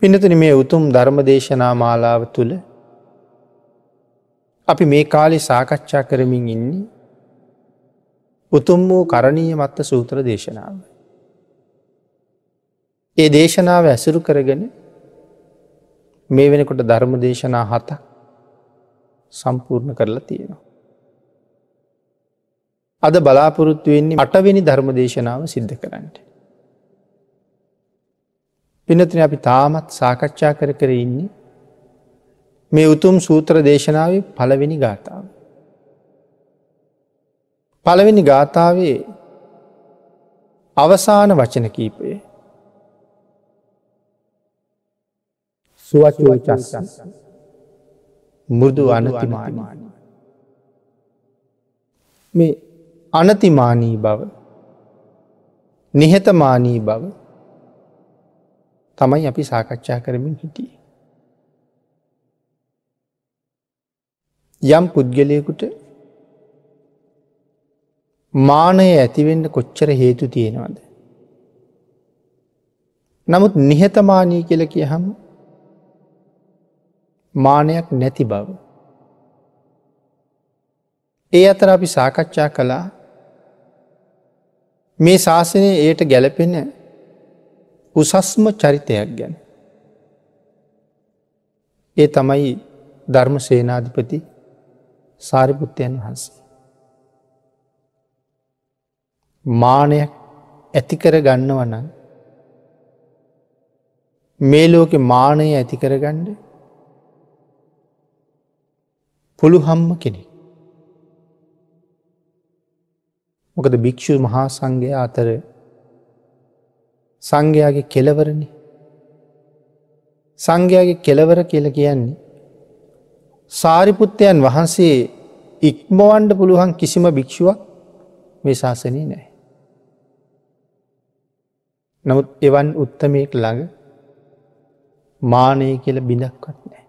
පින්නතුනි, මේ උතුම් ධර්ම දේශනා මාලාව තුළ අපි මේ කාලේ සාකච්ඡා කරමින් ඉන්නේ උතුම් වූ කරණීය මත්ත සූත්‍ර දේශනාව. ඒ දේශනාව ඇසුරු කරගෙන මේ වෙනකොට ධර්ම දේශනා 7ක් සම්පූර්ණ කරලා තියෙනවා. අද බලාපොරොත්තු වෙන්නේ 8 වෙනි ධර්ම දේශනාව සිද්ධ කරන්න. පින්නතුනි, අපි තාමත් සාකච්ඡා කර කර ඉන්නේ මේ උතුම් සූත්‍ර දේශනාවේ පළවෙනි ගාථාව. පළවෙනි ගාථාවේ අවසාන වචන කීපය සුවචෝ චස්ස මෘදු අනතිමානී. මේ අනතිමානී බව, නිහතමානී බව තමයි අපි සාකච්ඡා කරමින් හිටියේ. යම් පුද්ගලයෙකුට මානය ඇතිවෙන්න කොච්චර හේතු තියෙනවද? නමුත් නිහතමානී කියලා කියහම මානයක් නැති බව. ඒ අතර අපි සාකච්ඡා කළා මේ ශාසනයේ එයට ගැලපෙන උසස්ම චරිතයක් ගැන. ඒ තමයි ධර්ම සේනාධිපති සාරිපුත්තයන් වහන්සේ. මානයක් ඇති කර ගන්නව නම් මේ ලෝකේ මානය ඇති කරගන්න පුළුවන්ම කෙනෙක්. මොකද භික්ෂු මහා සංඝයා අතර සංඝයාගේ කෙලවරනේ. සංඝයාගේ කෙලවර කියලා කියන්නේ සාරිපුත්තයන් වහන්සේ ඉක්මවන්න පුළුවන් කිසිම භික්ෂුවක් මේ ශාසනයේ නැහැ. නමුත් එවන් උත්තමයෙක් ළඟ මානය කියලා බිඳක්වත් නැහැ.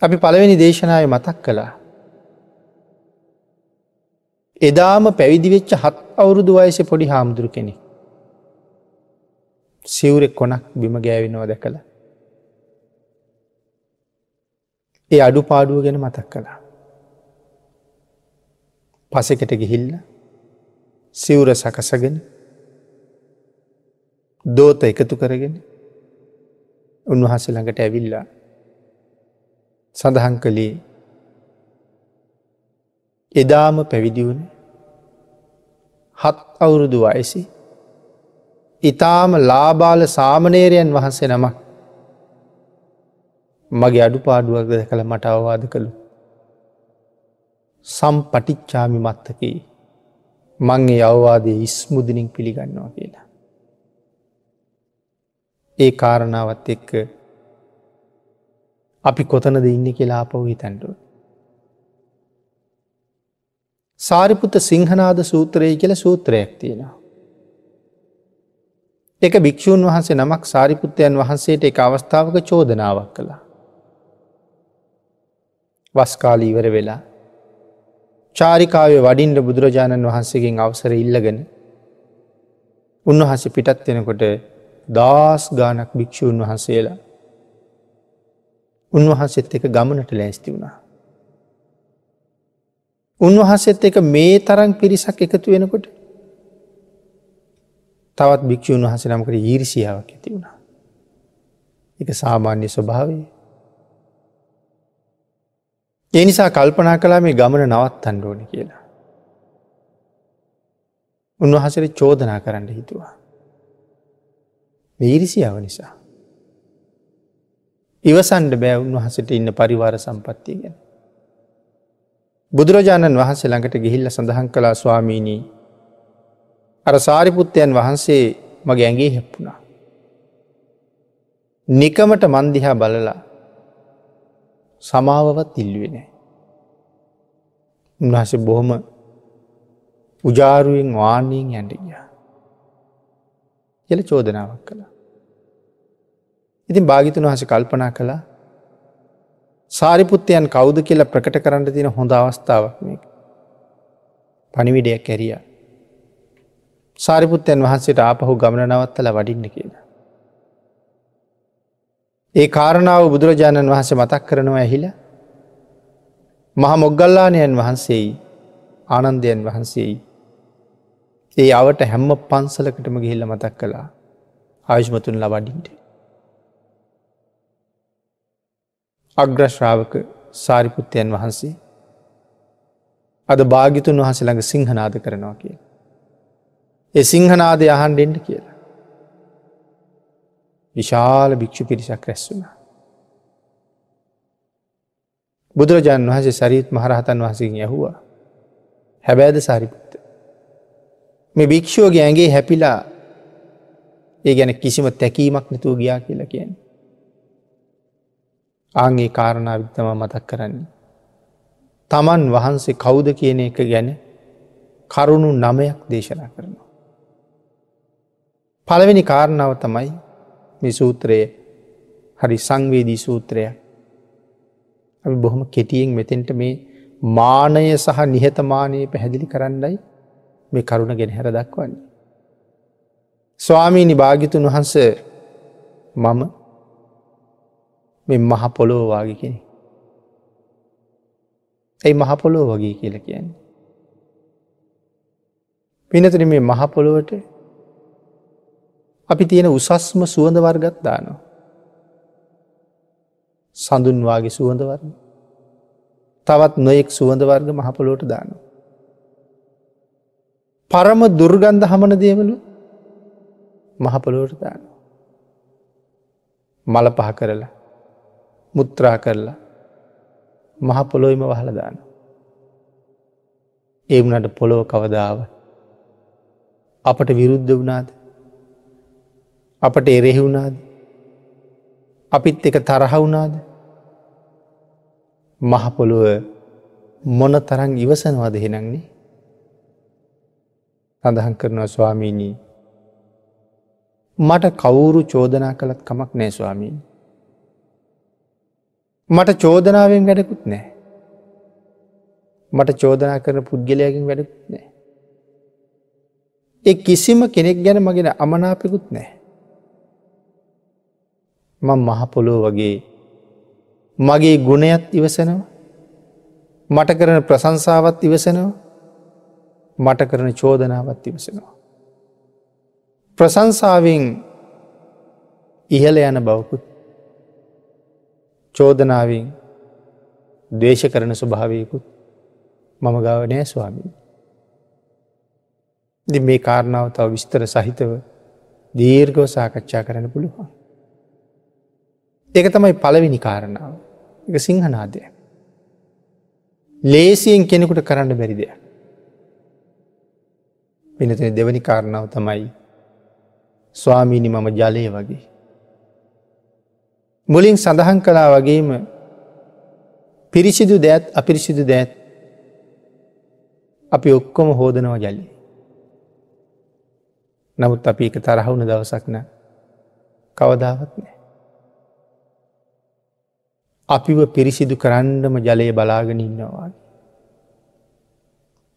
අපි පළවෙනි දේශනාවේ මතක් කළා. එදාම පැවිදි වෙච්ච 7 අවුරුදු වයසේ පොඩි හාමුදුරු කෙනෙක් සිවුරේ කොනක් බිම ගෑවෙනවා දැකලා ඒ අඩුපාඩුව ගැන මතක් කළා. පසෙකට ගිහිල්ලා සිවුර සකසගෙන දෝත එකතු කරගෙන උන්වහන්සේ ළඟට ඇවිල්ලා සඳහන් කළේ එදාම පැවිදි වුණ 7 අවුරුදු වයසේ ඊටාම ලාබාල සාමණේරයන් වහන්සේ නමක් මගේ අඩුපාඩුවක් දැකලා මට අවවාද කළු. සම්පටිච්ඡාමි මත්තකේ, මං ඒ අවවාදයේ ඉස්මුදුනින් පිළිගන්නවා කියලා. ඒ කාරණාවත් එක්ක අපි කොතනද ඉන්නේ කියලා ආපහු හිතන්න ඕනේ. සාරිපුත්ත සිංහනාද සූත්‍රය කියලා සූත්‍රයක් තියෙනවා. ඒක භික්ෂූන් වහන්සේ නමක් සාරිපුත්තයන් වහන්සේට එක අවස්ථාවක චෝදනාවක් කළා. වස් කාලය ඉවර වෙලා චාරිකාවේ වඩින්න බුදුරජාණන් වහන්සේගෙන් අවසර ඉල්ලගෙන උන්වහන්සේ පිටත් වෙනකොට දහස් ගාණක් භික්ෂූන් වහන්සේලා උන්වහන්සේත් එක්ක ගමනට ලෑස්ති වුණා. උන්වහන්සේත් එක්ක මේ තරම් පිරිසක් එකතු වෙනකොට තවත් භික්ෂූන් වහන්සේ නමකට ඊර්ෂියාවක් ඇති වුණා. ඒක සාමාන්‍ය ස්වභාවය. ඒ නිසා කල්පනා කළා මේ ගමන නවත්තන්න ඕනේ කියලා. උන්වහන්සේට චෝදනා කරන්න හිතුවා. මේ ඊර්ෂියාව නිසා. ඉවසන්න බෑ උන්වහන්සේට ඉන්න පරිවාර සම්පත්තිය ගැන. බුදුරජාණන් වහන්සේ ළඟට ගිහිල්ලා සඳහන් කළා, ස්වාමීනි, අර සාරිපුත්තයන් වහන්සේ මගේ ඇඟේ හැප්පුණා. නිකමට මන් දිහා බලලා සමාවවත් ඉල්ලුවේ නෑ. උන්වහන්සේ බොහොම උජාරුවෙන් වාණියෙන් යන්න ගියා කියලා චෝදනාවක් කළා. ඉතින් භාග්‍යතුන් වහන්සේ කල්පනා කළා සාරිපුත්තයන් කවුද කියලා ප්‍රකට කරන්න තියෙන හොඳ අවස්ථාවක් මේක. පණිවිඩයක් ඇරියා. සාරිපුත්තයන් වහන්සේට ආපහු ගමන නවත්තලා වඩින්න කියලා. ඒ කාරණාව බුදුරජාණන් වහන්සේ මතක් කරනවා ඇහිලා මහා මොග්ගල්ලාණයන් වහන්සේයි ආනන්දයන් වහන්සේයි ඒ අවට හැම පන්සලකටම ගිහිල්ලා මතක් කළා ආයුෂ්මතුන්ලා වඩින්න. අග්‍ර ශ්‍රාවක සාරිපුත්තයන් වහන්සේ අද භාග්‍යතුන් වහන්සේ ළඟ සිංහනාද කරනවා කියලා. ඒ සිංහනාදය අහන්න එන්න කියලා. විශාල භික්ෂු පිරිසක් රැස් වුණා. බුදුරජාණන් වහන්සේ සරියුත් මහරහතන් වහන්සේගෙන් ඇහුවා, හැබෑද සාරිපුත්ත, මේ භික්ෂුවගේ ඇඟේ හැපිලා ඒ ගැන කිසිම තැකීමක් නැතුව ගියා කියලා කියන්නේ. ආන් ඒ කාරණාව තමයි මතක් කරන්නේ. තමන් වහන්සේ කවුද කියන එක ගැන කරුණු 9ක් දේශනා කරනවා. පළවෙනි කාරණාව තමයි මේ සූත්‍රය හරි සංවේදී සූත්‍රයක්. අපි බොහොම කෙටියෙන් මෙතෙන්ට මේ මානය සහ නිහතමානය පැහැදිලි කරන්නයි මේ කරුණ ගෙන හැර දක්වන්නේ. ස්වාමීනි භාග්‍යතුන් වහන්සේ, මම මේ මහ පොළොව වාගේ කෙනෙක්. ඇයි මහ පොළොව වගේ කියලා කියන්නේ? පින්නතුනි, මේ මහ පොළොවට අපි තියෙන උසස්ම සුවඳ වර්ගත් දානවා. සඳුන් වාගේ සුවඳ වර්ග, තවත් නොයෙක් සුවඳ වර්ග මහ පොළොවට දානවා. පරම දුර්ගන්ධ හමන දේවලු මහ පොළොවට දානවා. මල පහ කරලා, මුත්‍රා කරලා මහ පොළොවෙම වහලා දානවා. ඒ වුණාට පොළොව කවදාවත් අපට විරුද්ධ වුණාද? අපට එරෙහි වුණාද? අපිත් එක තරහ වුණාද? මහ පොළොව මොන තරම් ඉවසනවද එහෙනම්නේ? සඳහන් කරනවා, ස්වාමීනි, මට කවුරු චෝදනා කළත් කමක් නෑ ස්වාමීනි. මට චෝදනාවෙන් වැඩකුත් නෑ. මට චෝදනා කරන පුද්ගලයාගෙන් වැඩකුත් නෑ. ඒ කිසිම කෙනෙක් ගැන මගේ අමනාපෙකුත් නෑ. මං මහ පොළොව වගේ මගේ ගුණයත් ඉවසනවා, මට කරන ප්‍රශංසාවත් ඉවසනවා, මට කරන චෝදනාවත් ඉවසනවා. ප්‍රශංසාවෙන් ඉහළ යන බවකුත්, චෝදනාවෙන් ද්වේෂ කරන ස්වභාවයකුත් මම ගාව නෑ ස්වාමීනි. ඉතින් මේ කාරණාව තව විස්තර සහිතව දීර්ඝව සාකච්ඡා කරන්න පුළුවන්. ඒක තමයි පළවෙනි කාරණාව. ඒක සිංහනාදයක්. ලේසියෙන් කෙනෙකුට කරන්න බැරි දෙයක්. වෙනතේ දෙවෙනි කාරණාව තමයි, ස්වාමීනි මම ජලය වගේ. මුලින් සඳහන් කළා වගේම පිරිසිදු දෑත් අපිරිසිදු දෑත් අපි ඔක්කොම හෝදනවා ජලය. නමුත් අපි ඒක තරහ වුණ දවසක් නෑ, කවදාවත් නෑ. අපිව පිරිසිදු කරන්නම ජලය බලාගෙන ඉන්නවා.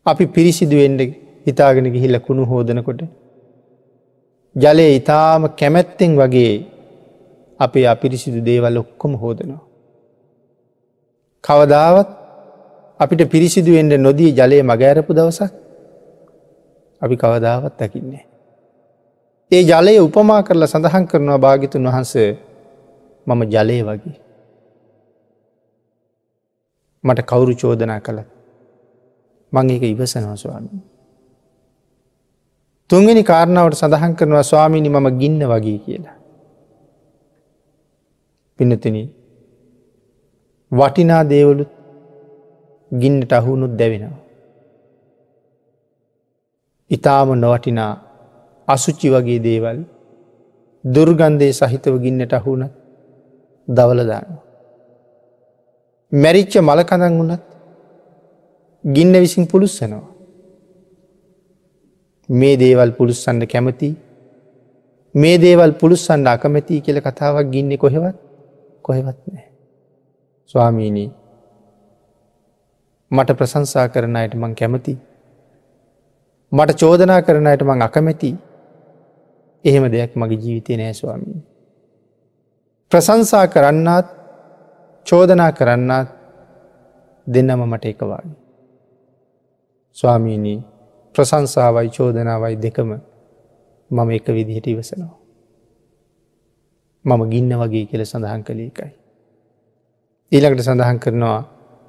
අපි පිරිසිදු වෙන්න හිතාගෙන ගිහිල්ලා කුණු හෝදනකොට ජලය ඊටාම කැමැත්තෙන් වගේ අපේ අපිරිසිදු දේවල් ඔක්කොම හෝදනවා. කවදාවත් අපිට පිරිසිදු වෙන්න නොදී ජලය මග ඇරපු දවසක් අපි කවදාවත් දකින්නේ නෑ. ඒ ජලය උපමා කරලා සඳහන් කරනවා භාග්‍යතුන් වහන්සේ, මම ජලය වගේ. මට කවුරු චෝදනා කළත් මං ඒක ඉවසනවා ස්වාමීනි. තුන්වෙනි කාරණාවට සඳහන් කරනවා, ස්වාමීනි මම ගින්න වගේ කියලා. පින්නතුනි, වටිනා දේවලුත් ගින්නට අහු වුණොත් දැවෙනවා. ඊටාම නොවටිනා අසුචි වගේ දේවල් දුර්ගන්ධයේ සහිතව ගින්නට අහු වුණත් දවල දානවා. මැරිච්ච මල කඳන් වුණත් ගින්න විසින් පුලුස්සනවා. මේ දේවල් පුලුස්සන්න කැමති, මේ දේවල් පුලුස්සන්න අකමැති කියලා කතාවක් ගින්නේ කොහෙවත් කොහෙවත් නෑ. ස්වාමීනි, මට ප්‍රශංසා කරන අයට මං කැමති, මට චෝදනා කරන අයට මං අකමැති. එහෙම දෙයක් මගේ ජීවිතේ නෑ ස්වාමීනි. ප්‍රශංසා කරන්නාත් චෝදනා කරන්නාත් දෙන්නම මට එක වාගේ. ස්වාමීනි, ප්‍රශංසාවයි චෝදනාවයි දෙකම මම එක විදිහට ඉවසනවා. මම ගින්න වගේ කියලා සඳහන් කළේ ඒකයි. ඊළඟට සඳහන් කරනවා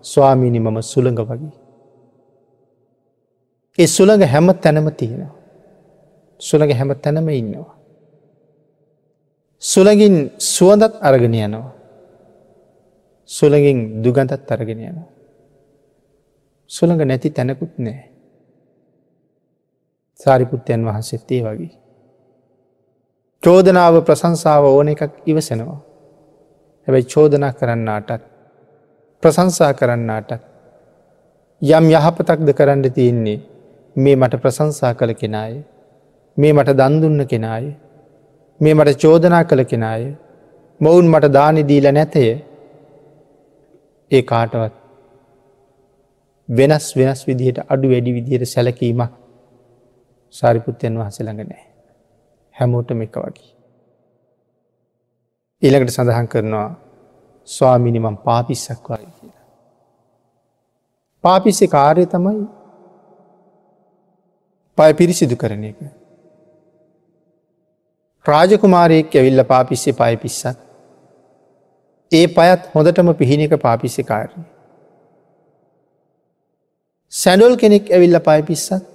ස්වාමීනි, මම සුළඟ වගේ. ඒ සුළඟ හැම තැනම තියෙනවා. සුළඟ හැම තැනම ඉන්නවා. සුළඟින් සුවඳත් අරගෙන යනවා. සුළඟින් දුගඳත් අරගෙන යනවා. සුළඟ නැති තැනකුත් නෑ. සාරිපුත්තයන් වහන්සේත් ඒ වගේ. චෝදනාව ප්‍රශංසාව ඕන එකක් ඉවසනවා. හැබැයි චෝදනා කරන්නාටත් ප්‍රශංසා කරන්නාටත් යම් යහපතක්ද කරන්න තියෙන්නේ මේ මට ප්‍රශංසා කළ කෙනාය, මේ මට දන් දුන්න කෙනාය, මේ මට චෝදනා කළ කෙනාය, මොවුන් මට දානි දීලා නැතය. ඒ කාටවත් වෙනස් වෙනස් විදිහට අඩු වැඩි විදිහට සැලකීමක් සාරිපුත්තයන් වහන්සේ ළඟ නැහැ. හැමෝටම එක වගේ. ඊළඟට සඳහන් කරනවා ස්වාමීනි, මං පාපිස්සක් වගේ කියලා. පාපිස්සේ කාර්යය තමයි පය පිරිසිදු කරන එක. රාජකුමාරයෙක් ඇවිල්ලා පාපිස්සේ පය පිස්සත් ඒ පයත් හොඳටම පිහින එක පාපිස්සේ කාර්යය. සැඬොල් කෙනෙක් ඇවිල්ලා පය පිස්සත්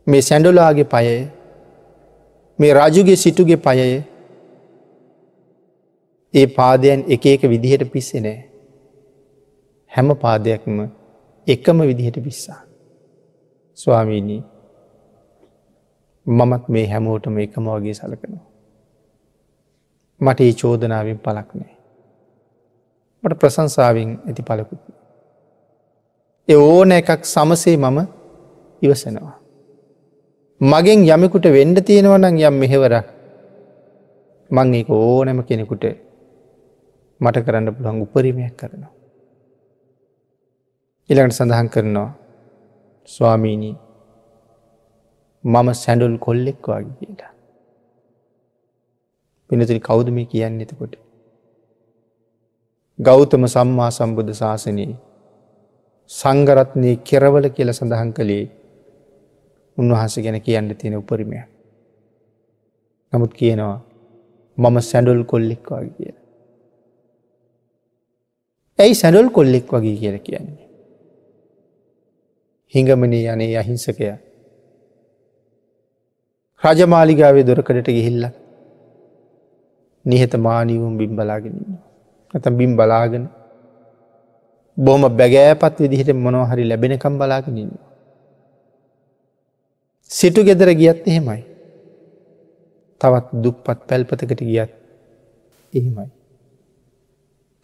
මේ සැඬොලාගේ පයය, මේ රජුගේ සිටුගේ පයය, ඒ පාදයන් එක එක විදිහට පිස්සේ නෑ. හැම පාදයක්ම එකම විදිහට පිස්සා. ස්වාමීනි, මමත් මේ හැමෝටම එකම වගේ සලකනවා. මට ඒ චෝදනාවෙන් පළක් නෑ. මට ප්‍රශංසාවෙන් ඇති පළකුත් නෑ. ඒ ඕන එකක් සමසේ මම ඉවසනවා. මගෙන් යමෙකුට වෙන්න තියෙනවා නම් යම් මෙහෙවරක්, මං ඒක ඕනෑම කෙනෙකුට මට කරන්න පුළුවන් උපරිමයක් කරනවා. ඊළඟට සඳහන් කරනවා ස්වාමීනි, මම සැඬොල් කොල්ලෙක් වගේ කියලා. පින්නතුනි, කවුද මේ කියන්නේ එතකොට? ගෞතම සම්මා සම්බුද්ධ ශාසනයේ සංඝරත්නයේ කෙරවල කියලා සඳහන් කළේ උන්වහන්සේ ගැන කියන්න තියෙන උපරිමයක්. නමුත් කියනවා මම සැඬොල් කොල්ලෙක් වගේ කියලා. ඇයි සැඬොල් කොල්ලෙක් වගේ කියලා කියන්නේ? හිඟමනේ යන්නේ අහිංසකයා රජමාලිගාවේ දොරකඩට ගිහිල්ලා නිහතමානීවම බිම් බලාගෙන ඉන්නවා. නැත්නම් බිම් බලාගෙන බොහොම බැගෑපත් විදිහට මොනවා හරි ලැබෙනකම් බලාගෙන ඉන්නවා. සිටු ගෙදර ගියත් එහෙමයි. තවත් දුප්පත් පැල්පතකට ගියත් එහෙමයි.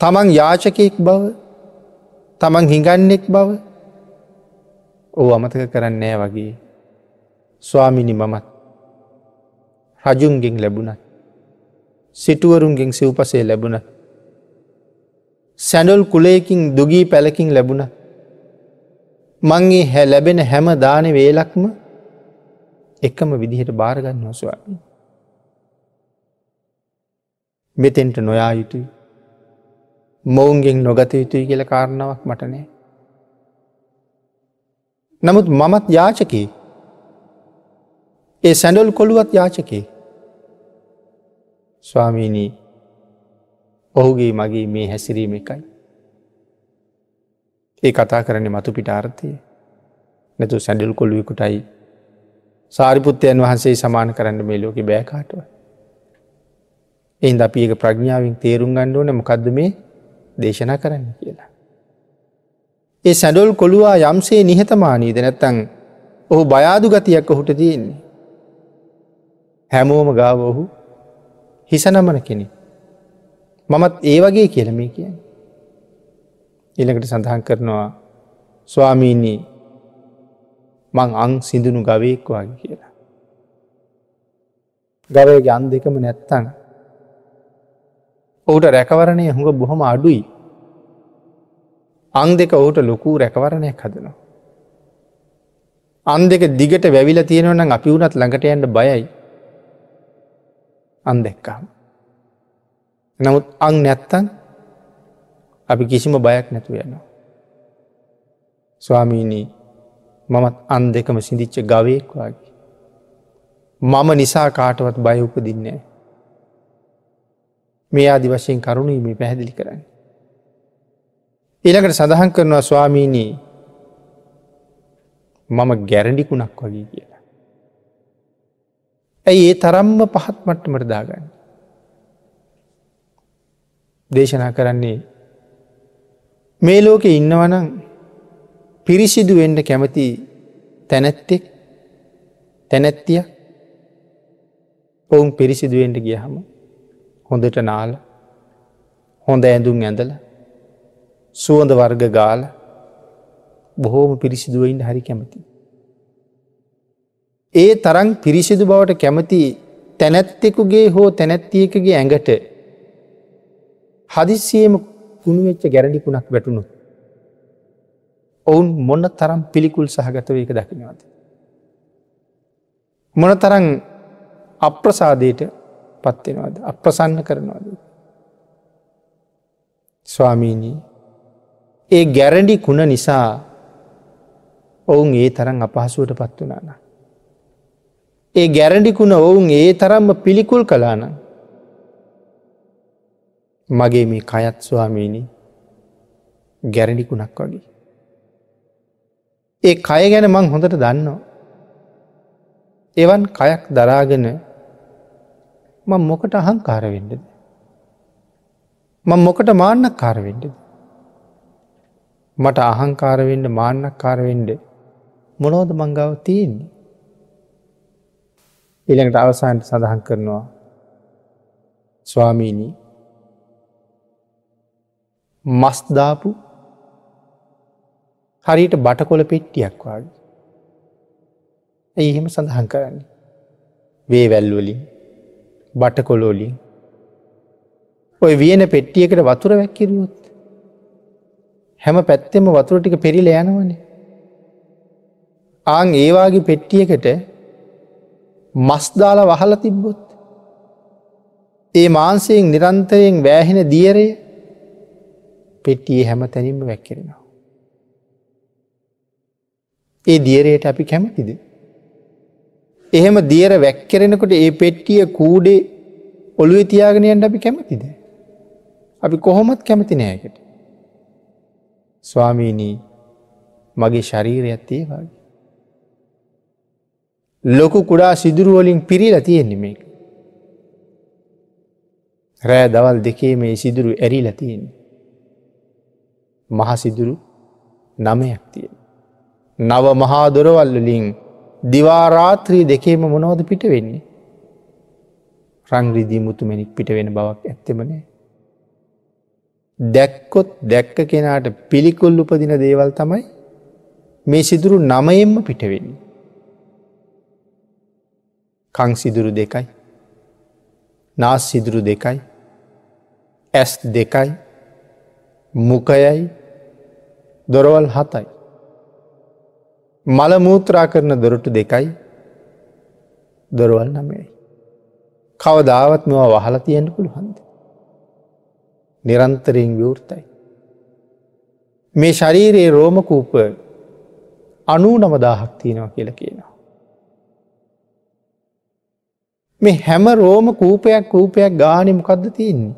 තමන් යාචකයෙක් බව, තමන් හිඟන්නෙක් බව ඔව් අමතක කරන්නේ නෑ වගේ. ස්වාමීනි, මමත් රජුන්ගෙන් ලැබුණත්, සිටුවරුන්ගෙන් සිව්පසේ ලැබුණත්, සැඬොල් කුලයකින් දුගී පැලකින් ලැබුණත්, මං ඒ ලැබෙන හැම දාන වේලක්ම එකම විදිහට බාර ගන්නවා ස්වාමීනි. මෙතෙන්ට නොයා යුතුයි, මොවුන්ගෙන් නොගත යුතුයි කියලා කාරණාවක් මට නෑ. නමුත් මමත් යාචකයෙක්. ඒ සැඬොල් කොළුවත් යාචකයෙක්. ස්වාමීනි, ඔහුගේ මගේ මේ හැසිරීම එකයි. ඒ කතා කරන්නේ මතු පිට අර්ථය. නැතු සැඬොල් කොළුවෙකුටයි සාරිපුත්තයන් වහන්සේ සමාන කරන්න මේ ලෝකේ බෑ කාටවත්. ඒ හින්දා අපි ඒක ප්‍රඥාවෙන් තේරුම් ගන්න ඕනේ මොකද්ද මේ දේශනා කරන්න කියලා. ඒ සැඬොල් කොළුවා යම්සේ නිහතමානීද නැත්නම් ඔහු බය අඩු ගතියක් ඔහුට තියෙන්නේ. හැමෝම ගාව ඔහු හිස නමන කෙනෙක්. මමත් ඒ වගේ කියලා මේ කියන්නේ. ඊළඟට සඳහන් කරනවා ස්වාමීනි, මං අං සිඳුණු ගවයෙක් වගේ කියලා. ගවයාගේ අං දෙකම නැත්තම් ඔහුට රැකවරණය හුඟ බොහොම අඩුයි. අං දෙක ඔහුට ලොකු රැකවරණයක් හදනවා. අං දෙක දිගට වැවිලා තියෙනවා නම් අපි වුණත් ළඟට යන්න බයයි. අං දැක්කම. නමුත් අං නැත්තම් අපි කිසිම බයක් නැතුව යනවා. ස්වාමීනි, මමත් අන් දෙකම සිඳිච්ච ගවයෙක් වගේ. මම නිසා කාටවත් බය උපදින්නේ නැහැ. මේ ආදි වශයෙන් කරුණුයි මේ පැහැදිලි කරන්නේ. ඊළඟට සඳහන් කරනවා ස්වාමීනි, මම ගැරඬි කුණක් වගේ කියලා. ඇයි ඒ තරම්ම පහත් මට්ටමට දාගන්නේ? දේශනා කරන්නේ මේ ලෝකේ ඉන්නවනම් පිරිසිදු වෙන්න කැමති තැනැත්තෙක් තැනැත්තිය ඔවුන් පිරිසිදු වෙන්න ගියහම හොඳට නාලා හොඳ ඇඳුම් ඇඳලා සුවඳ වර්ග ගාලා බොහෝම පිරිසිදුව ඉන්න හරි කැමති. ඒ තරම් පිරිසිදු බවට කැමති තැනැත්තෙකුගේ හෝ තැනැත්තියකගේ ඇඟට හදිස්සියෙම කුණු වෙච්ච ගැරඬි කුණක් වැටුණොත් ඔවුන් මොන තරම් පිළිකුල් සහගතව ඒක දකින්නවද? මොන තරම් අප්‍රසාදයට පත් වෙනවද? අප්‍රසන්න කරනවද? ස්වාමීනි, ඒ ගැරඬි කුණ නිසා ඔවුන් ඒ තරම් අපහසුවට පත් වුණා නම්, ඒ ගැරඬි කුණ ඔවුන් ඒ තරම්ම පිළිකුල් කළා නම්, මගේ මේ කයත් ස්වාමීනි ගැරඬි කුණක් වගේ. ඒ කය ගැන මං හොඳට දන්නවා. එවන් කයක් දරාගෙන මං මොකට අහංකාර වෙන්නද? මං මොකට මාන්නක්කාර වෙන්නද? මට අහංකාර වෙන්න මාන්නක්කාර වෙන්න මොනවද මං ගාව තියෙන්නේ? ඊළඟට අවසානට සඳහන් කරනවා ස්වාමීනි, මස් දාපු හරියට බටකොළ පෙට්ටියක් වගේ. ඇයි එහෙම සඳහන් කරන්නේ? වේවැල් වලින්, බටකොළ වලින් ඔය වියන පෙට්ටියකට වතුර වැක්කිරුවොත් හැම පැත්තෙම වතුර ටික පෙරිලා යනවනේ. ආන් ඒ වාගේ පෙට්ටියකට මස් දාලා වහලා තිබ්බොත් ඒ මාංශයෙන් නිරන්තරයෙන් වැහෙන දියරය පෙට්ටියේ හැම තැනින්ම වැක්කිරෙනවා. ඒ දියරයට අපි කැමතිද? එහෙම දියර වැක්කිරෙනකොට ඒ පෙට්ටිය කූඩේ ඔළුවේ තියාගෙන යන්න අපි කැමතිද? අපි කොහොමත් කැමති නෑ ඒකට. ස්වාමීනි, මගේ ශරීරයත් ඒ වගේ. ලොකු කුඩා සිදුරු වලින් පිරීලා තියෙන්නේ මේක. රෑ දවල් දෙකේ මේ සිදුරු ඇරිලා තියෙන්නේ. මහ සිදුරු 9ක් තියෙනවා. නව මහා දොරවල් වලින් දිවා රාත්‍රී දෙකේම මොනවද පිට වෙන්නේ? රන් රිදී මුතුමැණික් පිට වෙන බවක් ඇත්තෙම නෑ. දැක්කොත් දැක්ක කෙනාට පිළිකුල් උපදින දේවල් තමයි මේ සිදුරු 9න්ම පිට වෙන්නේ. කන් සිදුරු 2යි, නාස් සිදුරු 2යි, ඇස් 2යි, මුඛයයි, දොරවල් 7යි. මල මූත්‍රා කරන දොරටු 2යි, දොරවල් 9යි. කවදාවත් මේවා වහලා තියන්න පුළුවන්ද? නිරන්තරයෙන් විවෘතයි. මේ ශරීරයේ රෝම කූප 99,000ක් තියෙනවා කියලා කියනවා. මේ හැම රෝම කූපයක් ගානේ මොකද්ද තියෙන්නේ?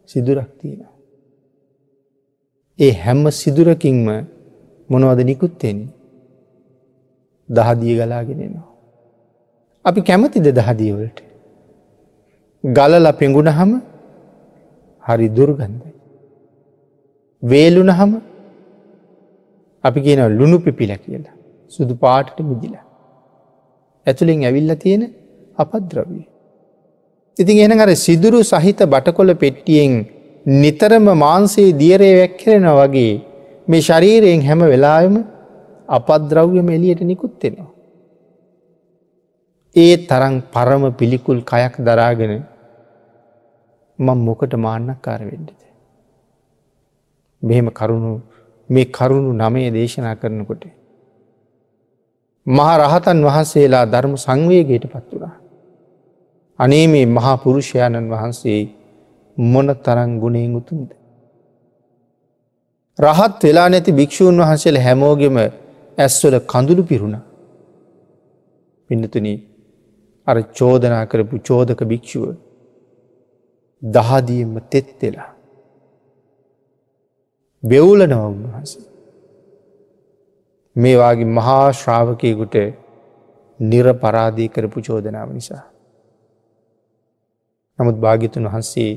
සිදුරක් තියෙනවා. ඒ හැම සිදුරකින්ම මොනවද නිකුත් වෙන්නේ? දහදිය ගලාගෙන එනවා. අපි කැමතිද දහදිය වලට? ගලලා පෙඟුනහම හරි දුර්ගන්ධයි. වේලුනහම අපි කියනවා ලුණු පිපිලා කියලා. සුදු පාටට මිදිලා. ඇතුලෙන් ඇවිල්ලා තියෙන අපද්‍රව්‍ය. ඉතින් එහෙනම් අර සිදුරු සහිත බටකොළ පෙට්ටියෙන් නිතරම මාංශයේ දියරේ වැක්කිරෙනවා වගේ මේ ශරීරයෙන් හැම වෙලාවෙම අපද්‍රව්‍යම එළියට නිකුත් වෙනවා. ඒ තරම් පරම පිළිකුල් කයක් දරාගෙන මම මොකට මාන්නක්කාර වෙන්නද? මෙහෙම කරුණු මේ කරුණු 9 දේශනා කරනකොට මහා රහතන් වහන්සේලා ධර්ම සංවේගයට පත් වුණා. අනේ මේ මහා පුරුෂයාණන් වහන්සේ මොන තරම් ගුණයෙන් උතුම්ද? රහත් වෙලා නැති භික්ෂූන් වහන්සේලා හැමෝගෙම ඇස්වල කඳුළු පිරුණා. පින්නතුනි, අර චෝදනා කරපු චෝදක භික්ෂුව දහදියෙන්ම තෙත් වෙලා වෙවුලනවා උන්වහන්සේ. මේ වාගේ මහා ශ්‍රාවකයෙකුට නිරපරාදී කරපු චෝදනාව නිසා. නමුත් භාග්‍යතුන් වහන්සේ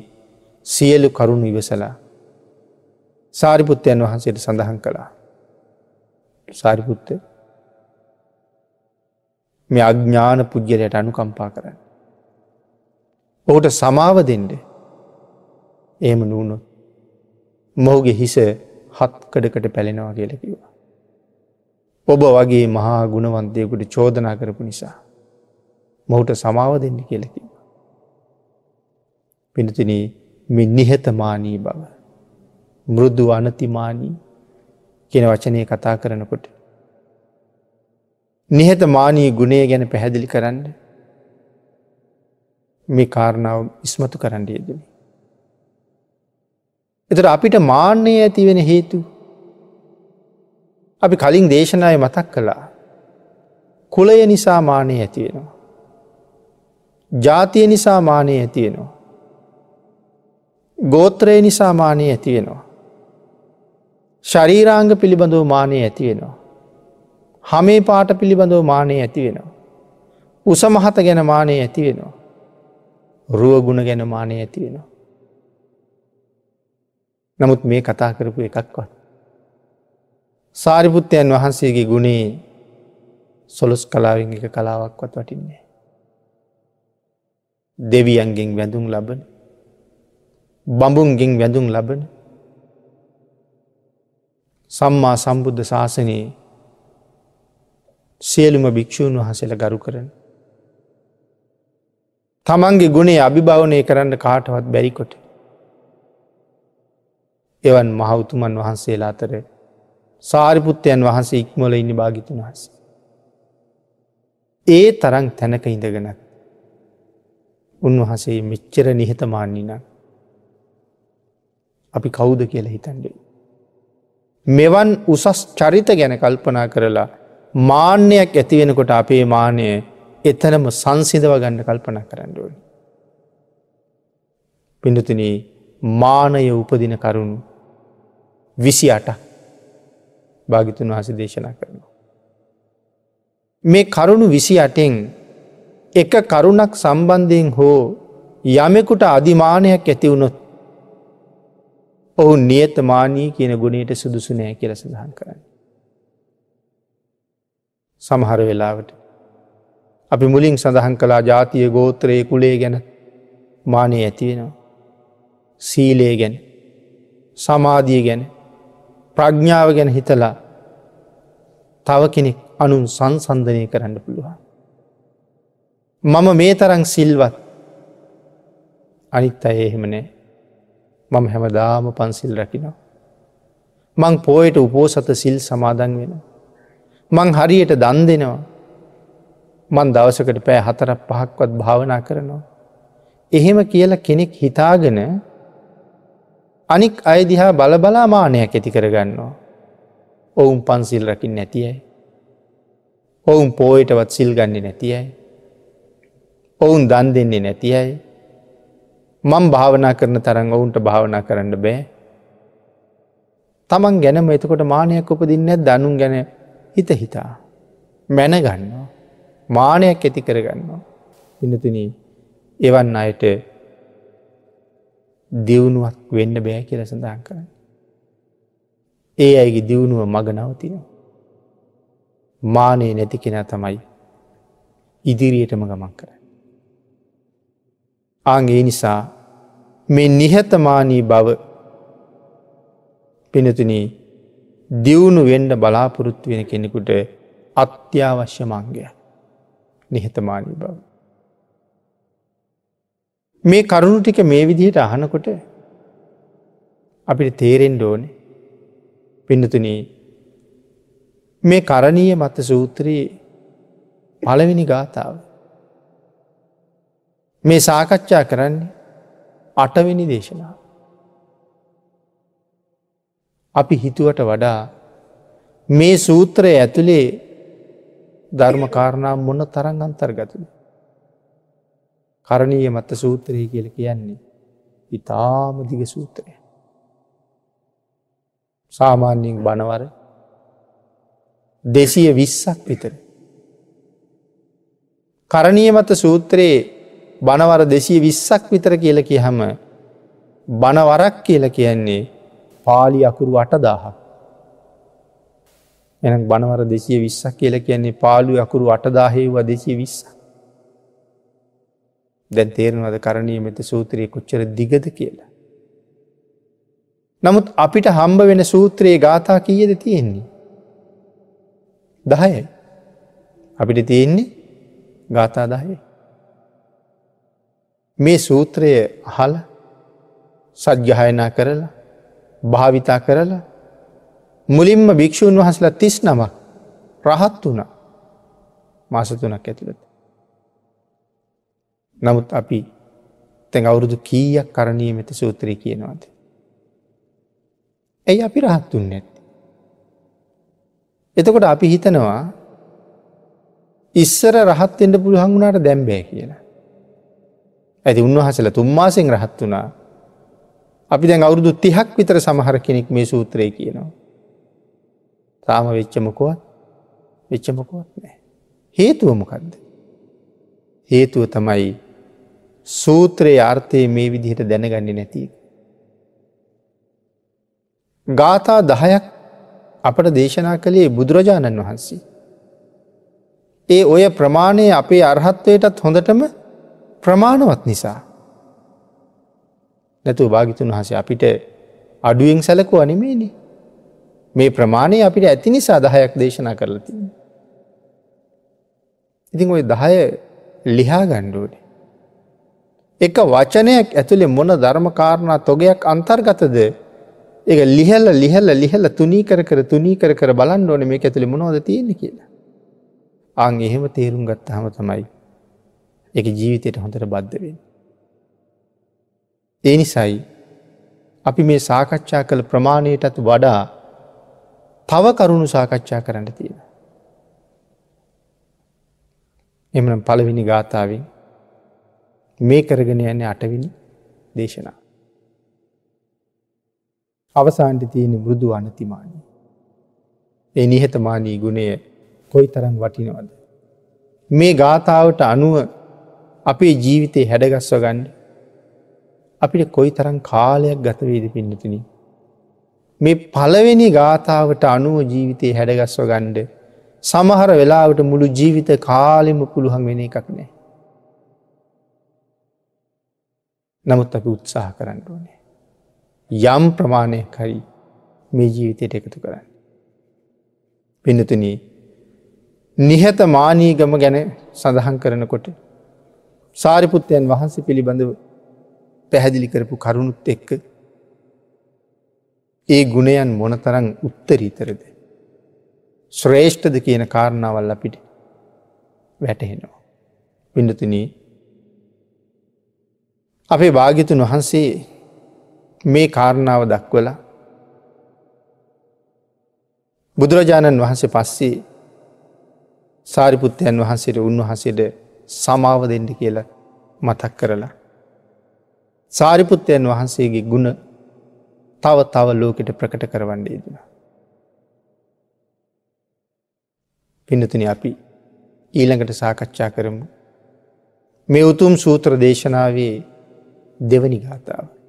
සියලු කරුණු ඉවසලා සාරිපුත්තයන් වහන්සේට සඳහන් කළා. සාරිපුත්ත, මේ අඥාන පුජ්‍යලයට අනුකම්පා කරන්න. ඔහුට සමාව දෙන්න. එහෙම නුනොත් මොහුගේ හිස හත් කඩකට පැලෙනවා කියලා කිව්වා. ඔබ වගේ මහා ගුණවන්තයෙකුට චෝදනා කරපු නිසා මොහුට සමාව දෙන්න කියලා කිව්වා. පින්තුනි, මේ නිහතමානී බව, මෘදු අනතිමානී කියන වචනේ කතා කරනකොට නිහතමානී ගුණය ගැන පැහැදිලි කරන්න මේ කාරණාව ඉස්මතු කරන්න යෙදුනේ. එතකොට අපිට මාන්නය ඇති වෙන හේතු අපි කලින් දේශනාවේ මතක් කළා. කුලය නිසා මාන්නය ඇති වෙනවා. ජාතිය නිසා මාන්නය ඇති වෙනවා. ගෝත්‍රය නිසා මාන්නය ඇති වෙනවා. ශරීරාංග පිළිබඳව මාන්නය ඇති වෙනවා. හමේ පාට පිළිබඳව මාන්නය ඇති වෙනවා. උස මහත ගැන මාන්නය ඇති වෙනවා. රුව ගුණ ගැන මාන්නය ඇති වෙනවා. නමුත් මේ කතා කරපු එකක්වත් සාරිපුත්තයන් වහන්සේගේ ගුණේ සොළොස් කලාවෙන් එක කලාවක්වත් වටින්නේ නැහැ. දෙවියන්ගෙන් වැඳුම් ලබන, බඹුන්ගෙන් වැඳුම් ලබන සම්මා සම්බුද්ධ ශාසනයේ සියලුම භික්ෂූන් වහන්සේලා ගරු කරන, තමන්ගේ ගුණය අභිභවනය කරන්න කාටවත් බැරි කොට එවන් මහ උතුමන් වහන්සේලා අතර සාරිපුත්තයන් වහන්සේ ඉක්මවල ඉන්නේ භාග්‍යතුන් වහන්සේ. ඒ තරම් තැනක ඉඳගෙනත් උන්වහන්සේ මෙච්චර නිහතමානී නම් අපි කවුද කියලා හිතන්නේ. මෙවන් උසස් චරිත ගැන කල්පනා කරලා මාන්නයක් ඇති වෙනකොට අපේ මාන්නය එතනම සංසිඳව ගන්න කල්පනා කරන්න ඕනේ. පින්තුනි, මානය උපදින කරුණු 28ක් භාග්‍යතුන් වහන්සේ දේශනා කරනවා. මේ කරුණු 28න් එක කරුණක් සම්බන්ධයෙන් හෝ යමෙකුට අදිමානයක් ඇති වුණොත් ඔහු නියතමානී කියන ගුණයට සුදුසු නෑ කියලා සඳහන් කරන්නේ. සමහර වෙලාවට අපි මුලින් සඳහන් කළා ජාතිය, ගෝත්‍රය, කුලය ගැන මානය ඇති වෙනවා. සීලය ගැන, සමාධිය ගැන, ප්‍රඥාව ගැන හිතලා තව කෙනෙක් අනුන් සංසන්දනය කරන්න පුළුවන්. මම මේ තරම් සිල්වත්, අනිත් අය එහෙම නෑ. මම හැමදාම පන්සිල් රකිනවා. මං පොයට උපෝසත සිල් සමාදන් වෙනවා. මං හරියට දන් දෙනවා. මං දවසකට පැය 4ක් 5ක්වත් භාවනා කරනවා. එහෙම කියලා කෙනෙක් හිතාගෙන අනික් අය දිහා බල බලා මානයක් ඇති කරගන්නවා. ඔවුන් පන්සිල් රකින්නේ නැති අය. ඔවුන් පොයටවත් සිල් ගන්නේ නැති අය. ඔවුන් දන් දෙන්නේ නැති අය. මං භාවනා කරන තරම් ඔවුන්ට භාවනා කරන්න බෑ. තමන් ගැනම එතකොට මානයක් උපදින්නේ නැද්ද? අනුන් ගැන හිත හිතා මැන ගන්නවා, මානයක් ඇති කරගන්නවා. පින්නතුනි, එවන් අයට දියුණුවක් වෙන්න බෑ කියලා සඳහන් කරන්නේ. ඒ අයගේ දියුණුව මග නවතිනවා. මානෙ නැති කෙනා තමයි ඉදිරියටම ගමන් කරන්නේ. ආන් ඒ නිසා මේ නිහතමානී බව පින්නතුනි දියුණු වෙන්න බලාපොරොත්තු වෙන කෙනෙකුට අත්‍යවශ්‍ය අංගයක් නිහතමානී බව. මේ කරුණු ටික මේ විදිහට අහනකොට අපිට තේරෙන්න ඕනේ පින්නතුනි මේ කරණීය මත්ත සූත්‍රයේ පළවෙනි ගාථාව මේ සාකච්ඡා කරන්නේ අටවෙනි දේශනාව. අපි හිතුවට වඩා මේ සූත්‍රය ඇතුලේ ධර්ම කාරණා මොන තරම් අන්තර්ගතද? කරණීය මත්ත සූත්‍රය කියලා කියන්නේ ඉතාම දිග සූත්‍රයක්. සාමාන්‍යයෙන් බණවර 220ක් විතර. කරණීය මත්ත සූත්‍රයේ බණවර 220ක් විතර කියලා කියහම බණවරක් කියලා කියන්නේ පාලි අකුරු 8000ක්. එහෙනම් බණවර 220ක් කියලා කියන්නේ පාලි අකුරු 8000 වුණා 220ක්. දැන් තේරෙනවද කරණීය මෙත්ත සූත්‍රයේ කොච්චර දිගද කියලා? නමුත් අපිට හම්බ වෙන සූත්‍රයේ ගාථා කීයද තියෙන්නේ? 10යි. අපිට තියෙන්නේ ගාථා 10යි. මේ සූත්‍රය අහලා සජ්ජායනා කරලා භාවිතා කරලා මුලින්ම භික්ෂූන් වහන්සේලා 39ක් රහත් වුණා මාස 3ක් ඇතුළත. නමුත් අපි දැන් අවුරුදු කීයක් කරණීය මෙත්ත සූත්‍රය කියනවද? ඇයි අපි රහත් වුන්නේ නැත්තේ? එතකොට අපි හිතනවා ඉස්සර රහත් වෙන්න පුළුවන් වුණාට දැන් බෑ කියලා. ඇයි උන්වහන්සේලා 3 මාසෙන් රහත් වුණා. අපි දැන් අවුරුදු 30ක් විතර සමහර කෙනෙක් මේ සූත්‍රය කියනවා. තාම වෙච්ච මොකවත් නෑ. හේතුව මොකද්ද? හේතුව තමයි සූත්‍රයේ අර්ථය මේ විදිහට දැනගන්නේ නැති එක. ගාථා 10ක් අපට දේශනා කළේ බුදුරජාණන් වහන්සේ. ඒ ඔය ප්‍රමාණය අපේ අරහත්ත්වයටත් හොඳටම ප්‍රමාණවත් නිසා. නැතුව භාග්‍යතුන් වහන්සේ අපිට අඩුවෙන් සැලකුවා නෙමෙයිනේ. මේ ප්‍රමාණය අපිට ඇති නිසා 10ක් දේශනා කරලා තියෙනවා. ඉතින් ওই 10 ලිහා ගන්න ඕනේ. එක වචනයක් ඇතුලේ මොන ධර්ම කාරණා තොගයක් අන්තර්ගතද ඒක ලිහලා ලිහලා ලිහලා තුනී කර කර තුනී කර කර බලන්න ඕනේ මේක ඇතුලේ මොනවද තියෙන්නේ කියලා. ආන් එහෙම තේරුම් ගත්තාම තමයි ඒක ජීවිතයට හොඳට බද්ධ වෙන්නේ. ඒ නිසායි අපි මේ සාකච්ඡා කළ ප්‍රමාණයටත් වඩා තව කරුණු සාකච්ඡා කරන්න තියෙනවා. එහෙමනම් පළවෙනි ගාථාවෙන් මේ කරගෙන යන්නේ අටවෙනි දේශනාව. අවසානයේ තියෙන මෘදු අනතිමානී. ඒ නිහතමානී ගුණය කොයිතරම් වටිනවද? මේ ගාථාවට අනුව අපේ ජීවිතේ හැඩගස්ව ගන්න අපිට කොයිතරම් කාලයක් ගත වේද පින්නතුනි? මේ පළවෙනි ගාථාවට අනුව ජීවිතේ හැඩගස්ව ගන්න සමහර වෙලාවට මුළු ජීවිත කාලෙම පුළුවන් වෙන එකක් නෑ. නමුත් අපි උත්සාහ කරන්න ඕනේ යම් ප්‍රමාණයක් හරි මේ ජීවිතයට එකතු කරන්න. පින්නතුනි, නිහතමානීගම ගැන සඳහන් කරනකොට සාරිපුත්තයන් වහන්සේ පිළිබඳව පැහැදිලි කරපු කරුණුත් එක්ක ඒ ගුණයන් මොනතරම් උත්තරීතරද ශ්‍රේෂ්ඨද කියන කාරණාවල් අපිට වැටහෙනවා. පින්නතුනි, අපේ භාග්‍යතුන් වහන්සේ මේ කාරණාව දක්වලා බුදුරජාණන් වහන්සේ පස්සේ සාරිපුත්තයන් වහන්සේට උන්වහන්සේට සමාව දෙන්න කියලා මතක් කරලා සාරිපුත්තයන් වහන්සේගේ ගුණ තව තව ලෝකෙට ප්‍රකට කරවන්න යෙදුණා. පින්නතුනි, අපි ඊළඟට සාකච්ඡා කරමු මේ උතුම් සූත්‍ර දේශනාවේ දෙවනි ගාථාව.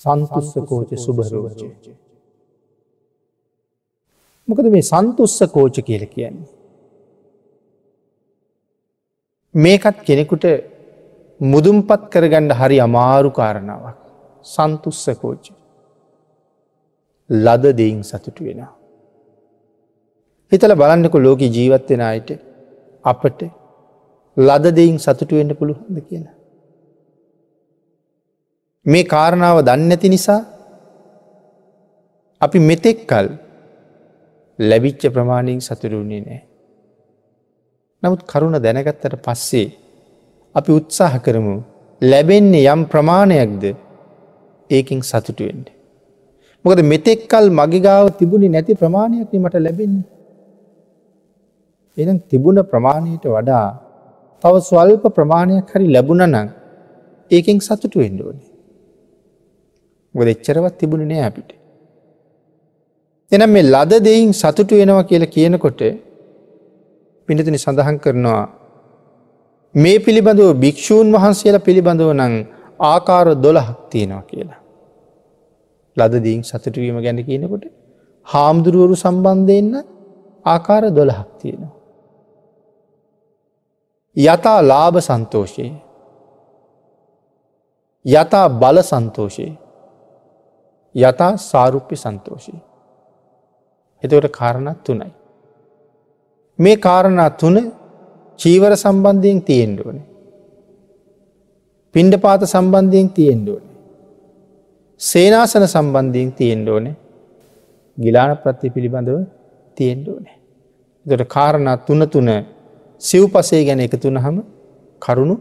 සන්තුස්ස කෝච සුභරෝච. මොකද මේ සන්තුස්ස කෝච කියලා කියන්නේ? මේකත් කෙනෙකුට මුදුන්පත් කරගන්න හරි අමාරු කාරණාවක්. සන්තුස්ස කෝච. ලද දෙයින් සතුටු වෙනවා. හිතලා බලන්නකෝ ලෝකේ ජීවත් වෙන අයට අපට ලද දෙයින් සතුටු වෙන්න පුළුවන්ද කියලා. මේ කාරණාව දන්නේ නැති නිසා අපි මෙතෙක් කල් ලැබිච්ච ප්‍රමාණයෙන් සතුටු වුණේ නැහැ. නමුත් කරුණ දැනගත්තට පස්සේ අපි උත්සාහ කරමු ලැබෙන්නේ යම් ප්‍රමාණයක්ද ඒකෙන් සතුටු වෙන්න. මොකද මෙතෙක් කල් මගේ ගාව තිබුණේ නැති ප්‍රමාණයක් නේ මට ලැබෙන්නේ. එහෙනම් තිබුණ ප්‍රමාණයට වඩා තව ස්වල්ප ප්‍රමාණයක් හරි ලැබුණා නම් ඒකෙන් සතුටු වෙන්න ඕනේ. මොකද එච්චරවත් තිබුණේ නෑ අපිට. එහෙනම් මේ ලද දෙයින් සතුටු වෙනවා කියලා කියනකොට පින්නතුනි සඳහන් කරනවා මේ පිළිබඳව භික්ෂූන් වහන්සේලා පිළිබඳව නම් ආකාර 12ක් තියෙනවා කියලා. ලද දෙයින් සතුටු වීම ගැන කියනකොට හාමුදුරුවරු සම්බන්ධයෙන් ආකාර 12ක් තියෙනවා. යථා ලාභ සන්තෝෂේ, යථා බල සන්තෝෂේ, යථා සාරුප්‍ය සන්තෝෂේ. එතකොට කාරණා තුනයි. මේ කාරණා තුන චීවර සම්බන්ධයෙන් තියෙන්න ඕනේ. පිණ්ඩපාත සම්බන්ධයෙන් තියෙන්න ඕනේ. සේනාසන සම්බන්ධයෙන් තියෙන්න ඕනේ. ගිලාන ප්‍රත්‍ය පිළිබඳව තියෙන්න ඕනේ. එතකොට කාරණා තුන තුන සිව්පසේ ගැන එකතු වුනහම කරුණු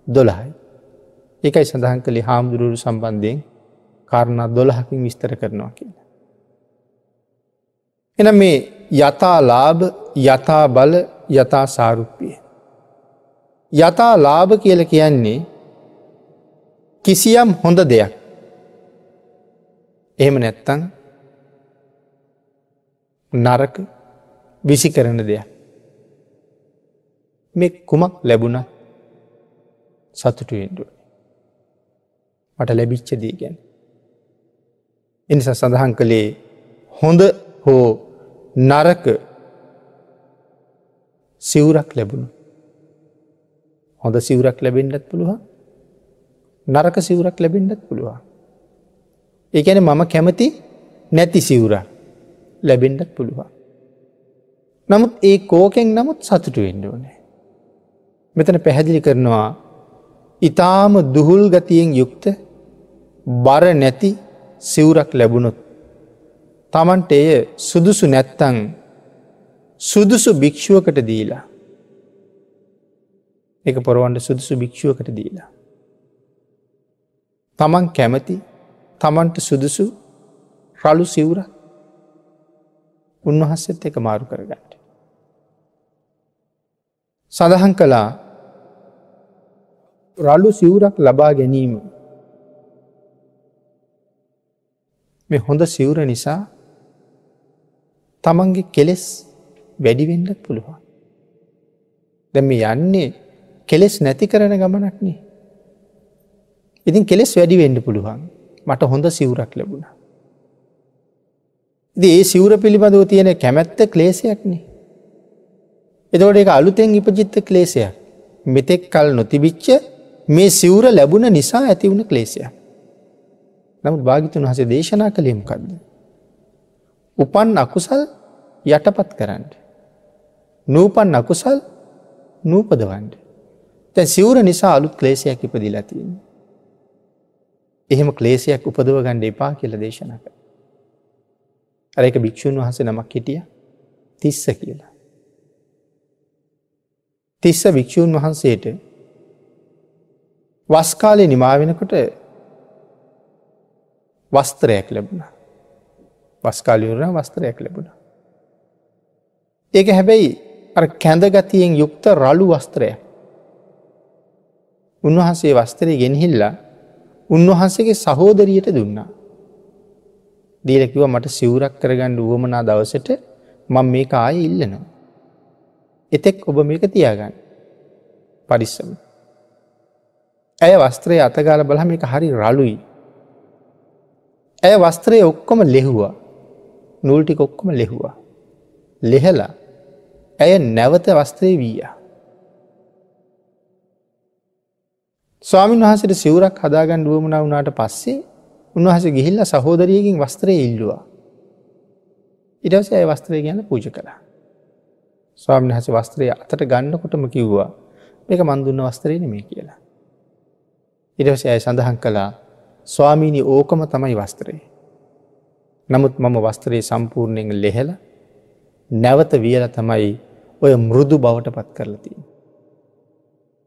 12යි. ඒකයි සඳහන් කළේ හාමුදුරුවෝ සම්බන්ධයෙන් කාරණා 12කින් විස්තර කරනවා කියලා. එහෙනම් මේ යථා ලාභ, යථා බල, යථා සාරුප්‍ය. යථා ලාභ කියලා කියන්නේ කිසියම් හොඳ දෙයක්. එහෙම නැත්නම් නරක විසි කරන දෙයක්. මේ කුමක් ලැබුණත් සතුටු වෙන්න ඕනේ. මට ලැබිච්ච දේ ගැන. ඒ නිසා සඳහන් කළේ හොඳ හෝ නරක සිවුරක් ලැබුණා. හොඳ සිවුරක් ලැබෙන්නත් පුළුවන්, නරක සිවුරක් ලැබෙන්නත් පුළුවන්. ඒ කියන්නේ මම කැමති නැති සිවුරක් ලැබෙන්නත් පුළුවන්. නමුත් ඒ කෝකෙන් නමුත් සතුටු වෙන්න ඕනේ. මෙතන පැහැදිලි කරනවා ඊටාම දුහුල් ගතියෙන් යුක්ත බර නැති සිවුරක් ලැබුණොත් තමන්ට එය සුදුසු නැත්තං සුදුසු භික්ෂුවකට දීලා, ඒක පොරවන්න සුදුසු භික්ෂුවකට දීලා, තමන් කැමති තමන්ට සුදුසු රළු සිවුරක් උන්වහන්සේත් එක්ක මාරු කරගන්න. සඳහන් කළා රළු සිවුරක් ලබා ගැනීම මේ හොඳ සිවුර නිසා තමන්ගේ කෙලෙස් වැඩි වෙන්නත් පුළුවන්. දැන් මේ යන්නේ කෙලෙස් නැති කරන ගමනක් නේ. ඉතින් කෙලෙස් වැඩි වෙන්න පුළුවන්. මට හොඳ සිවුරක් ලැබුණා. ඉතින් ඒ සිවුර පිළිබඳව තියෙන කැමැත්ත ක්ලේශයක් නේ. එතකොට ඒක අලුතෙන් ඉපදිච්ච ක්ලේශයක්. මෙතෙක් කල් නොතිබිච්ච මේ සිවුර ලැබුණ නිසා ඇති වුණ ක්ලේශයක්. නමුත් භාග්‍යතුන් වහන්සේ දේශනා කළේ මොකද්ද? උපන් අකුසල් යටපත් කරන්න. නූපන් අකුසල් නූපදවන්න. දැන් සිවුර නිසා අලුත් ක්ලේශයක් ඉපදිලා තියෙනවා. එහෙම ක්ලේශයක් උපදව ගන්න එපා කියලා දේශනා කළා. අර එක භික්ෂුන් වහන්සේ නමක් හිටියා තිස්ස කියලා. තිස්ස භික්ෂුන් වහන්සේට වස් කාලේ නිමා වෙනකොට වස්ත්‍රයක් ලැබුණා. වස් කාලේ ඉවරන වස්ත්‍රයක් ලැබුණා. ඒක හැබැයි අර කැඳ ගතියෙන් යුක්ත රළු වස්ත්‍රයක්. උන්වහන්සේ වස්ත්‍රය ගෙනහිල්ලා උන්වහන්සේගේ සහෝදරියට දුන්නා. දීලා කිව්වා මට සිවුරක් කරගන්න උවමනා දවසට මම මේක ආයේ ඉල්ලනවා. එතෙක් ඔබ මේක තියාගන්න. පරිස්සම. ඇය වස්ත්‍රය අතගාලා බලහම මේක හරි රළුයි. ඇය වස්ත්‍රය ඔක්කොම ලෙහුවා. නූල් ටික ඔක්කොම ලෙහුවා. ලෙහලා ඇය නැවත වස්ත්‍රය වීයා. ස්වාමීන් වහන්සේට සිවුරක් හදාගන්න උවමනා වුණාට පස්සේ උන්වහන්සේ ගිහිල්ලා සහෝදරියගෙන් වස්ත්‍රය ඉල්ලුවා. ඊට පස්සේ ඇය වස්ත්‍රය ගැන පූජා කළා. ස්වාමීන් වහන්සේ වස්ත්‍රය අතට ගන්නකොටම කිව්වා මේක මන් දුන්න වස්ත්‍රය නෙමෙයි කියලා. ඊට පස්සේ ඇය සඳහන් කළා ස්වාමීනි ඕකම තමයි වස්ත්‍රය. නමුත් මම වස්ත්‍රය සම්පූර්ණයෙන් ලෙහලා නැවත වියලා තමයි ඔය මෘදු බවට පත් කරලා තියෙන්නේ.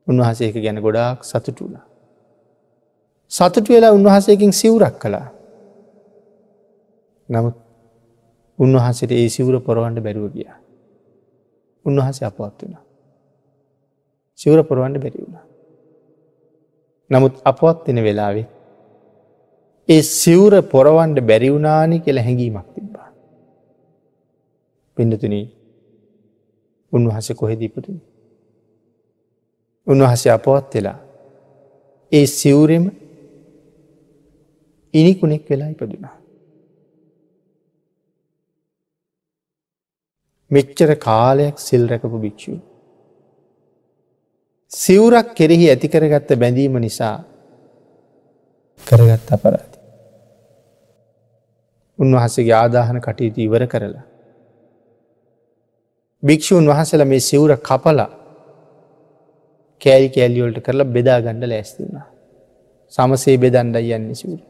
උන්වහන්සේ ඒක ගැන ගොඩාක් සතුටු වුණා. සතුටු වෙලා උන්වහන්සේගෙන් සිවුරක් කළා. නමුත් උන්වහන්සේට ඒ සිවුර පොරවන්න බැරුව ගියා. උන්වහන්සේ අපවත් වුණා. සිවුර පොරවන්න බැරි වුණා. නමුත් අපවත් වෙන වෙලාවේ ඒ සිවුර පොරවන්න බැරි වුණානි කියලා හැඟීමක් තිබ්බා. පින්නතුනි, උන්වහන්සේ කොහෙද ඉපදුනේ? උන්වහන්සේ අපවත් වෙලා ඒ සිවුරෙම ඉනිකුණෙක් වෙලා ඉපදුනා. මෙච්චර කාලයක් සිල් රැකපු භික්ෂුව සිවුරක් කෙරෙහි ඇති කරගත්ත බැඳීම නිසා කරගත්ත අපරාධය. උන්වහන්සේගේ ආදාහන කටයුතු ඉවර කරලා භික්ෂූන් වහන්සේලා මේ සිවුර කපලා කෑලි කෑලි වලට කරලා බෙදා ගන්න ලෑස්ති වුණා. සමසේ බෙදන්නයි යන්නේ සිවුර.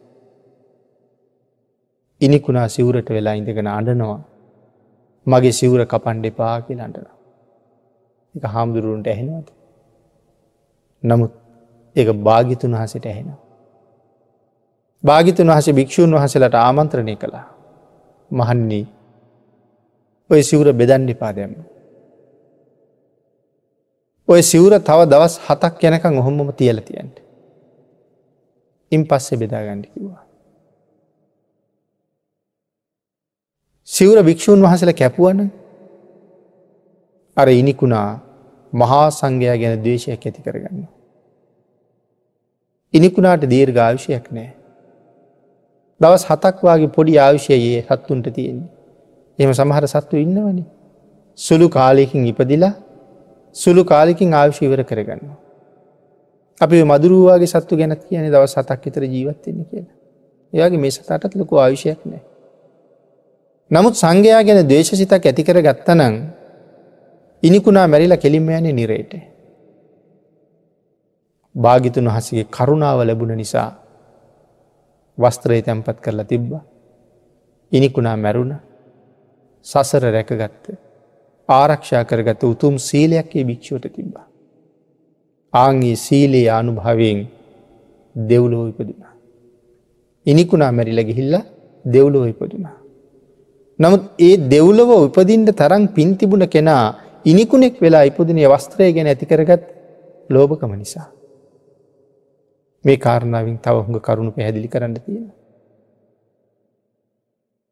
ඉනිකුණා සිවුරට වෙලා ඉඳගෙන අඬනවා. මගේ සිවුර කපන්න එපා කියලා අඬනවා. ඒක හාමුදුරුවන්ට ඇහෙනවද? නමුත් ඒක භාග්‍යතුන් වහන්සේට ඇහෙනවා. භාග්‍යතුන් වහන්සේ භික්ෂූන් වහන්සේලාට ආමන්ත්‍රණය කළා. මහන්නි, ඔය සිවුර බෙදන්න එපා දැම්ම. ඔය සිවුර තව දවස් 7ක් යනකම් ඔහොමම තියලා තියන්න. ඉන් පස්සේ බෙදා ගන්න කිව්වා. සිවුර භික්ෂූන් වහන්සේලා කැපුවනම් අර ඉනිකුණා මහා සංඝයා ගැන ද්වේෂයක් ඇති කරගන්නවා. ඉනිකුණාට දීර්ඝ ආයුෂයක් නෑ. දවස් 7ක් වාගේ පොඩි ආයුෂයයි ඒ සත්තුන්ට තියෙන්නේ. එහෙම සමහර සත්තු ඉන්නවනේ. සුළු කාලයකින් ඉපදිලා සුළු කාලයකින් ආයුෂ ඉවර කරගන්නවා. අපි ඔය මදුරුවෝ වගේ සත්තු ගැනත් කියන්නේ දවස් 7ක් විතර ජීවත් වෙන්න කියලා. ඒ වගේ මේ සතාටත් ලොකු ආයුෂයක් නෑ. නමුත් සංඝයා ගැන ද්වේෂසිතක් ඇති කරගත්තා නම් ඉනිකුණා මැරිලා කෙලින්ම යන්නේ නිරේට. භාග්‍යතුන් වහන්සේගේ කරුණාව ලැබුණ නිසා වස්ත්‍රය තැන්පත් කරලා තිබ්බා. ඉනිකුණා මැරුණා. සසර රැකගත්ත, ආරක්ෂා කරගත්ත උතුම් සීලයක් ඒ භික්ෂුවට තිබ්බා. ආන් ඒ සීලේ අනුභවයෙන් දෙව්ලොව ඉපදුනා. ඉනිකුණා මැරිලා ගිහිල්ලා දෙව්ලොව ඉපදුනා. නමුත් ඒ දෙව්ලොව උපදින්න තරම් පින් තිබුණ කෙනා ඉනිකුණෙක් වෙලා ඉපදුනේ වස්ත්‍රය ගැන ඇති කරගත් ලෝභකම නිසා. මේ කාරණාවෙන් තව හුඟ කරුණු පැහැදිලි කරන්න තියෙනවා.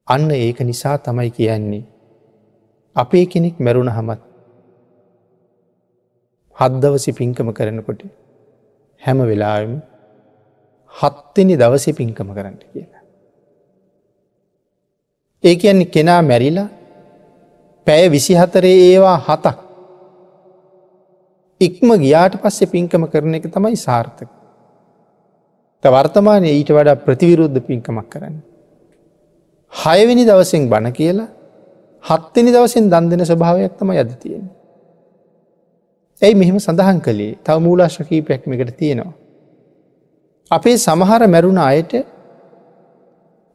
අන්න ඒක නිසා තමයි කියන්නේ අපේ කෙනෙක් මැරුණහමත් හත් දවසේ පින්කම කරනකොට හැම වෙලාවෙම හත්වෙනි දවසේ පින්කම කරන්න කියලා. ඒ කියන්නේ කෙනා මැරිලා පැය 24 ඒවා 7ක් ඉක්ම ගියාට පස්සේ පින්කම කරන එක තමයි සාර්ථක. වර්තමානයේ ඊට වඩා ප්‍රතිවිරුද්ධ පින්කමක් කරන්නේ. 6 වෙනි දවසෙන් බණ කියලා 7 වෙනි දවසෙන් දන් දෙන ස්වභාවයක් තමයි අද තියෙන්නේ. ඇයි මෙහෙම සඳහන් කළේ? තව මූලාශ්‍ර කීපයක් මේකට තියෙනවා. අපේ සමහර මැරුණ අයට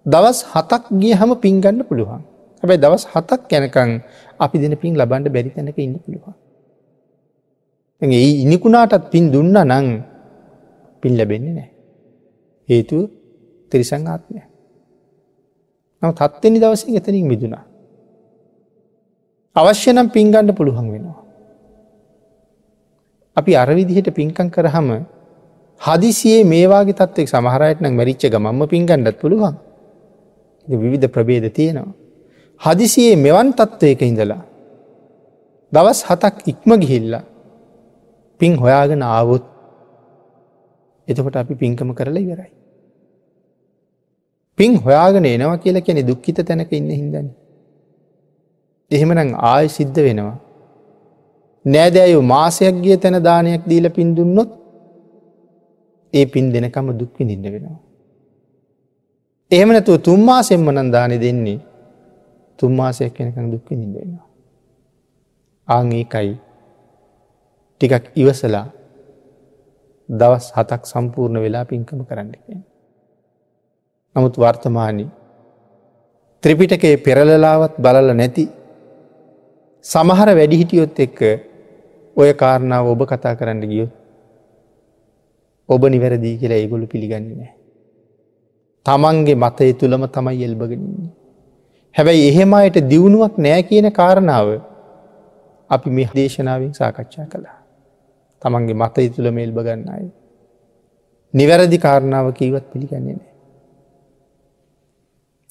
දවස් 7ක් ගියහම පින් ගන්න පුළුවන්. හැබැයි දවස් 7ක් යනකම් අපි දෙන පින් ලබන්න බැරි තැනක ඉන්න පුළුවන්. දැන් ඒ ඉනිකුණාටත් පින් දුන්නා නම් පින් ලැබෙන්නේ නැහැ. හේතුව තිරිසන් ආත්මය. නමුත් 7 වෙනි දවසේ එතනින් මිදුණා. අවශ්‍ය නම් පින් ගන්න පුළුවන් වෙනවා. අපි අර විදිහට පින්කම් කරාම හදිසියේ මේ වාගේ තත්ත්වයක සමහර අයට නම් මැරිච්ච ගමන්ම පින් ගන්නත් පුළුවන්. ඉතින් විවිධ ප්‍රභේද තියෙනවා. හදිසියේ මෙවන් තත්ත්වයක ඉඳලා දවස් 7ක් ඉක්ම ගිහිල්ලා පින් හොයාගෙන ආවොත් එතකොට අපි පින්කම කරලා ඉවරයි. පින් හොයාගෙන එනවා කියලා කියන්නේ දුක්ඛිත තැනක ඉන්න හින්දානේ. එහෙමනම් ආයෙ සිද්ධ වෙනවා. නෑදෑයෝ මාසයක් ගිය තැන දානයක් දීලා පින් දුන්නොත් ඒ පින් දෙනකම දුක් විඳින්න වෙනවා. එහෙම නැතුව 3 මාසෙන්ම නම් දානෙ දෙන්නේ 3 මාසයක් වෙනකන් දුක් විඳින්න වෙනවා. ආන් ඒකයි ටිකක් ඉවසලා දවස් 7ක් සම්පූර්ණ වෙලා පින්කම කරන්න කියන්නේ. නමුත් වර්තමානයේ ත්‍රිපිටකයේ පෙරලලාවත් බලලා නැති සමහර වැඩිහිටියොත් එක්ක ඔය කාරණාව ඔබ කතා කරන්න ගියොත් ඔබ නිවැරදි කියලා ඒගොල්ලෝ පිළිගන්නේ නැහැ. තමන්ගේ මතය තුලම තමයි එල්බගෙන ඉන්නේ. හැබැයි එහෙම අයට දියුණුවක් නෑ කියන කාරණාව අපි මේ දේශනාවෙන් සාකච්ඡා කළා. තමන්ගේ මතය තුලම එල්බ ගන්න අය නිවැරදි කාරණාව කීවත් පිළිගන්නේ නෑ.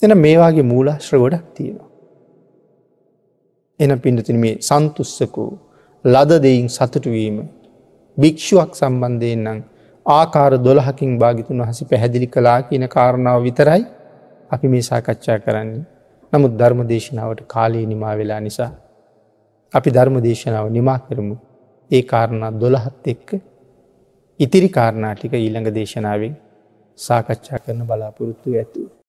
එහෙනම් මේ වාගේ මූලාශ්‍ර ගොඩක් තියෙනවා. එහෙනම් පින්තුනි මේ සන්තුස්සකෝ ලද දෙයින් සතුටු වීම භික්ෂුවක් සම්බන්ධයෙන් නම් ආකාර 12කින් භාග්‍යතුන් වහන්සේ පැහැදිලි කළා කියන කාරණාව විතරයි අපි මේ සාකච්ඡා කරන්නේ. නමුත් ධර්ම දේශනාවට කාලය නිමා වෙලා නිසා අපි ධර්ම දේශනාව නිමා කරමු. ඒ කාරණා 12ත් එක්ක ඉතිරි කාරණා ටික ඊළඟ දේශනාවෙන් සාකච්ඡා කරන බලාපොරොත්තු ඇතුව.